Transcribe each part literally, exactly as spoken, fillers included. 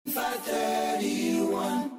five thirty-one.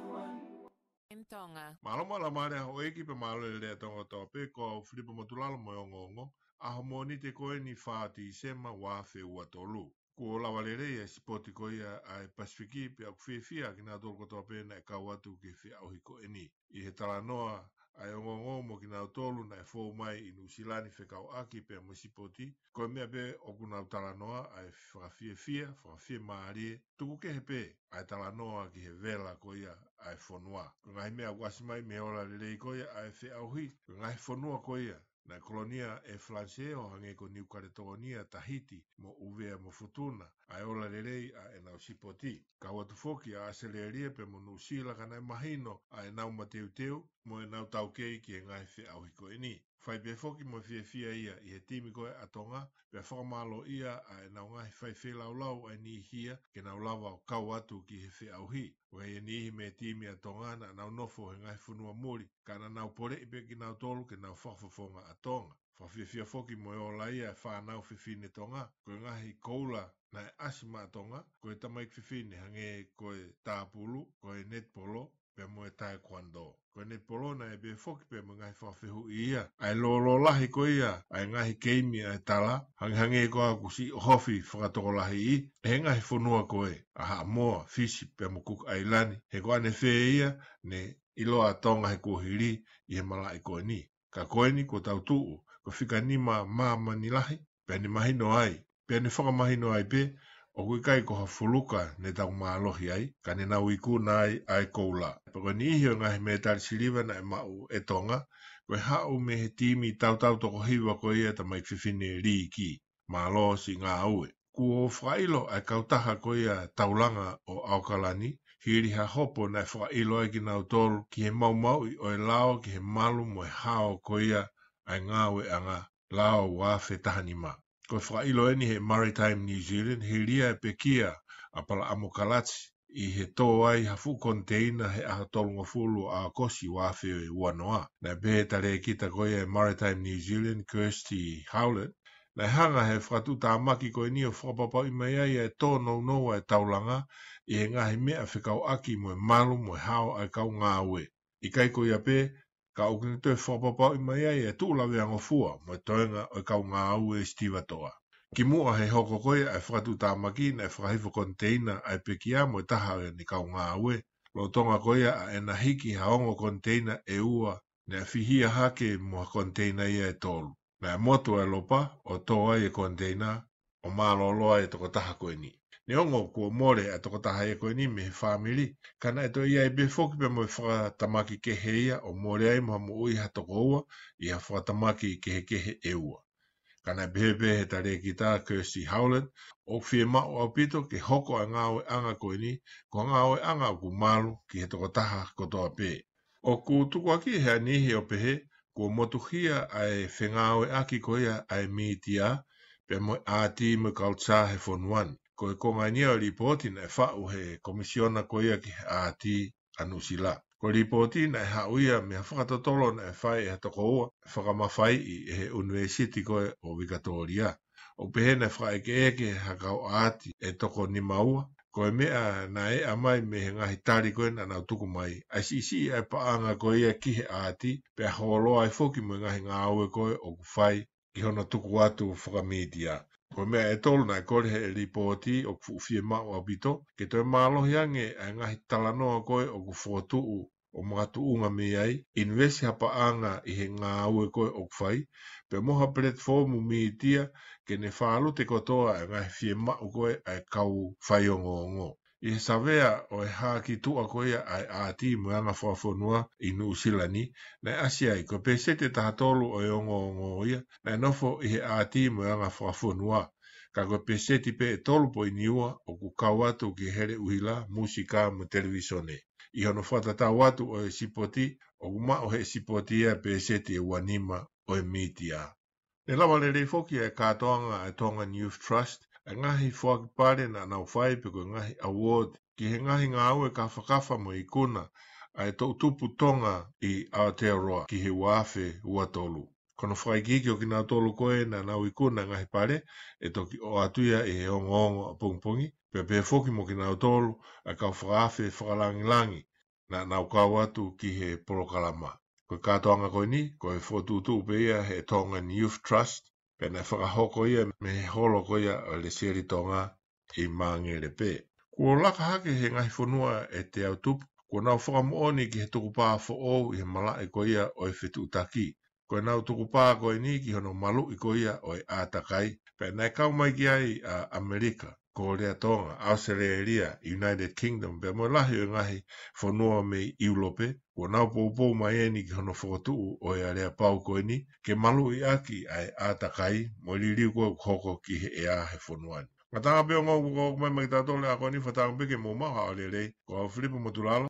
M Tonga. Mālō mo e laumālie ʻa houʻeiki pea mālō e lelei ʻa Tonga kotoa pē, ko au Filipa Motulalo mo e ongoongo, ʻaho Mōnite ko eni fā Tīsema ua afe ua tolu. Kuo lava lelei e sipoti ko ia ʻa e Pasifiki pea ʻoku fiefia kinautolu kotoa pē naʻe kau atu ki he feʻauhi ko eni. ʻI he talanoa ʻa e ongoongo mo kinautolu naʻe fou mai ʻi Nuʻusila ni fekauʻaki pea mo e sipoti, ko e meʻa pē ʻoku nau talanoa ʻa e fakafiefia, fakafiemālie, tuku kehe pē ʻa e talanoa ki he vela ko ia ʻa e fonua. Ko e ngaahi meʻa ʻoku ʻasi mai mei he ola lelei ko ia ʻa e feʻauhi, ko e ngaahi fonua ko ia naʻe kolonia ʻe Falanisē ʻo hangē ko Niu Kaletōnia, Tahiti, mo ʻUvea mo Futuna, ʻa e ola lelei ʻa ʻenau sipoti. Kau atu foki ʻa ʻAositelēlia pea mo Nuʻusila ka naʻe mahino ʻa ʻenau mateuteu mo ʻenau taukei ki he ngaahi feʻauhi ko eni. Fai pē foki mo e fiefia ia ʻi he timi ko ē ʻa Tonga, pea fakamālōʻia ʻa ʻenau ngaahi fai feilaulau ʻa e niʻihi ia ke nau lava ʻo kau atu ki he feʻauhi. ʻOku ʻi ai e niʻihi mei he timi ʻa Tonga naʻa nau nofo he ngaahi fonua muli, ka naʻa nau poleʻi pē kinautolu ke nau fakafofonga ʻa Tonga. Fakafiefia foki mo e ola ia e fānau fefine Tonga, ko e ngaahi koula naʻe ʻasi maʻa Tonga, ko e tamaiki fefine hangē ko e tāpulu, ko e netipolo, pea mo e taekwondo. Ko e netipolo naʻe pehē foki pea mo e ngaahi fakafehuʻi ia ʻa e lōlō lahi ko ia ʻa e ngaahi keimi ʻa e tala, hangehangē ko ā ʻoku siʻi ʻohofi fakatokolahiʻi ʻe he ngaahi fonua ko ē ʻa Haʻamoa, Fisi, pea mo Kuki ʻAilani, he ko ʻanefē ia ne ʻiloa ʻa Tonga he kuohili ʻi he malaʻe ko eni. Ka ko eni kuo tau tuʻu, ko e fika nima māmani lahi, pea ne mahino ai, pea ne fakamahino ai pē, ʻoku ʻikai ko ha fuluka ne tau mālohi ai, ka ne nau ikuna ai ʻa e koula. Pea ko e niʻihi ʻo e ngaahi mētali siliva naʻe maʻu ʻe Tonga, ko e haʻu mei he timi tautau toko hiva ko ia tamaiki fefine Liki. Mālō siʻi ngāue. Kuo fakaʻilo ʻa e kautaha ko ia taulanga ʻo ʻAokalani, hili ha hopo naʻe fakaʻilo ai kinautolu ki he maumauʻi ʻo e lao ki he malu mo e hao ko ia ʻa e ngāueʻanga lao ua afe taha nima. Ko e fakaʻilo eni he Maritime New Zealand, hili ia e pekia ʻa Palaʻamo Kalati, ʻi he tō ai ha fuʻu koniteina he ʻaho tolungofulu ʻo ʻAokosi ua afe ua noa. Naʻe pehē ʻe he talēkita ko ia e Maritime New Zealand, Kirsty Howlett, naʻe hanga ʻe he fakatuʻutāmaki ko eni ʻo fakapapauʻi mai ai ʻa e tōnounou ʻa e taulanga ʻi he ngaahi meʻa fekauʻaki mo e malu mo e hao ʻa e kau ngāue. ʻIkai ko ia pē, ka ʻoku ne toe fakapapauʻi mai ai e tuʻu laveangofua mo e toenga ʻo e kau ngāue sitivatoʻa. Kimuʻa he hoko ko ia ʻa e fakatuʻutāmaki, naʻe fakahifo koniteina ʻa e pekia mo e taha ʻo ʻene kau ngāue, lolotonga ko ia ʻa ʻena hiki ha ongo koniteina ʻe ua naʻe fihia hake mo ha koniteina ia ʻe tolu. Naʻe motu ʻa e lopa ʻo tō ai e koniteina, ʻo mālōlō ai e tokotaha ko eni. Neongo kuo mole ʻa e tokotaha ia ko eni mei he fāmili, ka naʻe toe ʻi ai pē foki pea mo e fakatamaki kehe ia ʻo mole ai mo ha moʻui ha tokoua ʻi ha fakatamaki kehekehe ʻe ua. Ka naʻe pehē pē ʻe he talēkita Kirsty Howlett, ʻoku fiemaʻu ʻaupito ke hoko ʻa e ngāueʻanga ko eni ko ha ngāueʻanga ʻoku malu ki he tokotaha kotoa pē. ʻOku tukuakiʻi ʻe ha niʻihi ʻo pehē kuo motuhia ʻa e fengāueʻaki ko ia ʻa e mītia pea mo e ʻāti mo e culture he fonua ni. Ko e konga eni ia ʻo e lipooti naʻe faʻu ʻe he Komisiona ko ia ki he ʻĀti ʻa Nuʻusila. Ko e lipooti naʻe haʻu ia mei ha fakatotolo naʻe fai ʻe ha tokoua fakamafaiʻi ʻe he ʻUnivēsiti ko ē ʻo Vikatōlia. ʻOku pehē naʻe fakaʻekeʻeke ʻe ha kau ʻāti ʻe toko nima ua, ko e meʻa naʻe ʻomai mei he ngaahi tali ko ē naʻa nau tuku mai, ʻa e siʻisiʻi ʻa e paʻanga ko ia ki he ʻāti, pea holoa ai foki mo e ngaahi ngāue ko ē ʻoku fai ki hono tuku atu fakamītia. Ko e meʻa ʻe tolu naʻe kole ʻe he lipooti ʻoku fuʻu fiemaʻu ʻaupito ke toe mālohi ange ʻa e ngaahi talanoa ko ē ʻoku fokotuʻu ʻo makatuʻunga mei ai, ʻinivesi ha paʻanga ʻi he ngāue ko ē ʻoku fai, pea mo ha platform mītia ke ne fālute kotoa ʻa e ngaahi fiemaʻu ko ē ʻa e kau faiongoongo. ʻI he savea ʻo e hā ki tuʻa ko ia ʻa e ʻāti mo e anga fakafonua ʻi Nuʻusila ni, naʻe ʻasi ai ko e pēseti ʻe taha tolu ʻo e ongoongo ia naʻe nofo ʻi he ʻāti mo e anga fakafonua. Ka ko e pēseti pē ʻe tolu poini ua ʻoku kau atu ki he hele ʻuhila, mūsika mo e televīsone. ʻI hono fakatatau atu ʻo e sipoti, ʻoku maʻu ʻe he sipoti ia e pēseti ʻe ua nima ʻo e mītia. Ne lava lelei foki ʻa e kātoanga ʻa e Tongan Youth Trust, ʻa e ngaahi foaki pale naʻa nau fai pe ko e ngaahi award, ki he ngaahi ngāue kāfakafa mo e ikuna ʻa e toʻutupu Tonga ʻi Aotearoa ki he ua afe ua tolu. Ko hono fakaikiiki ʻo kinautolu ko ē naʻa nau ikuna e ngaahi pale, ʻe toki ʻoatu ia ʻi he ongoongo ʻapongipongi, pea pehē foki mo kinautolu ʻa e kau fakaafe fakalangilangi naʻa nau kau atu ki he polokalama. Ko e kātoanga ko eni, ko e fokotuʻutuʻu pē ia ʻe he Tongan Youth Trust, pea naʻe fakahoko ia mei he holo ko ia ʻo e Lesieli Tonga ʻi Māngere pē. Kuo laka hake he ngaahi fonua ʻe teau tupu, kuo nau fakamoʻoni ki he tukupā foʻou ʻi he malaʻe ko ia ʻo e fetuʻutaki. Ko ʻenau tukupā ko eni ki hono maluʻi ko ia ʻo e ʻātakai, pea naʻe kau mai ki ai ʻa ʻAmelika, Kōlea Tonga, ʻAositelēlia, United Kingdom, pea mo e lahi ʻo e ngaahi fonua mei ʻIulope, kuo nau poupou mai eni ki hono fokotuʻu ʻo e aleapau ko eni, ke maluʻi ʻaki ʻa e ʻātakai, mo e liliu ko ē ʻoku hoko ki he ʻea he fonua ni. Ngataʻanga pē ongo kuo ʻomai mai kiate kitautolu e ako ni, fakatauange pē ke mou maʻu ha ʻaho lelei, ko au Filipo Motulalo,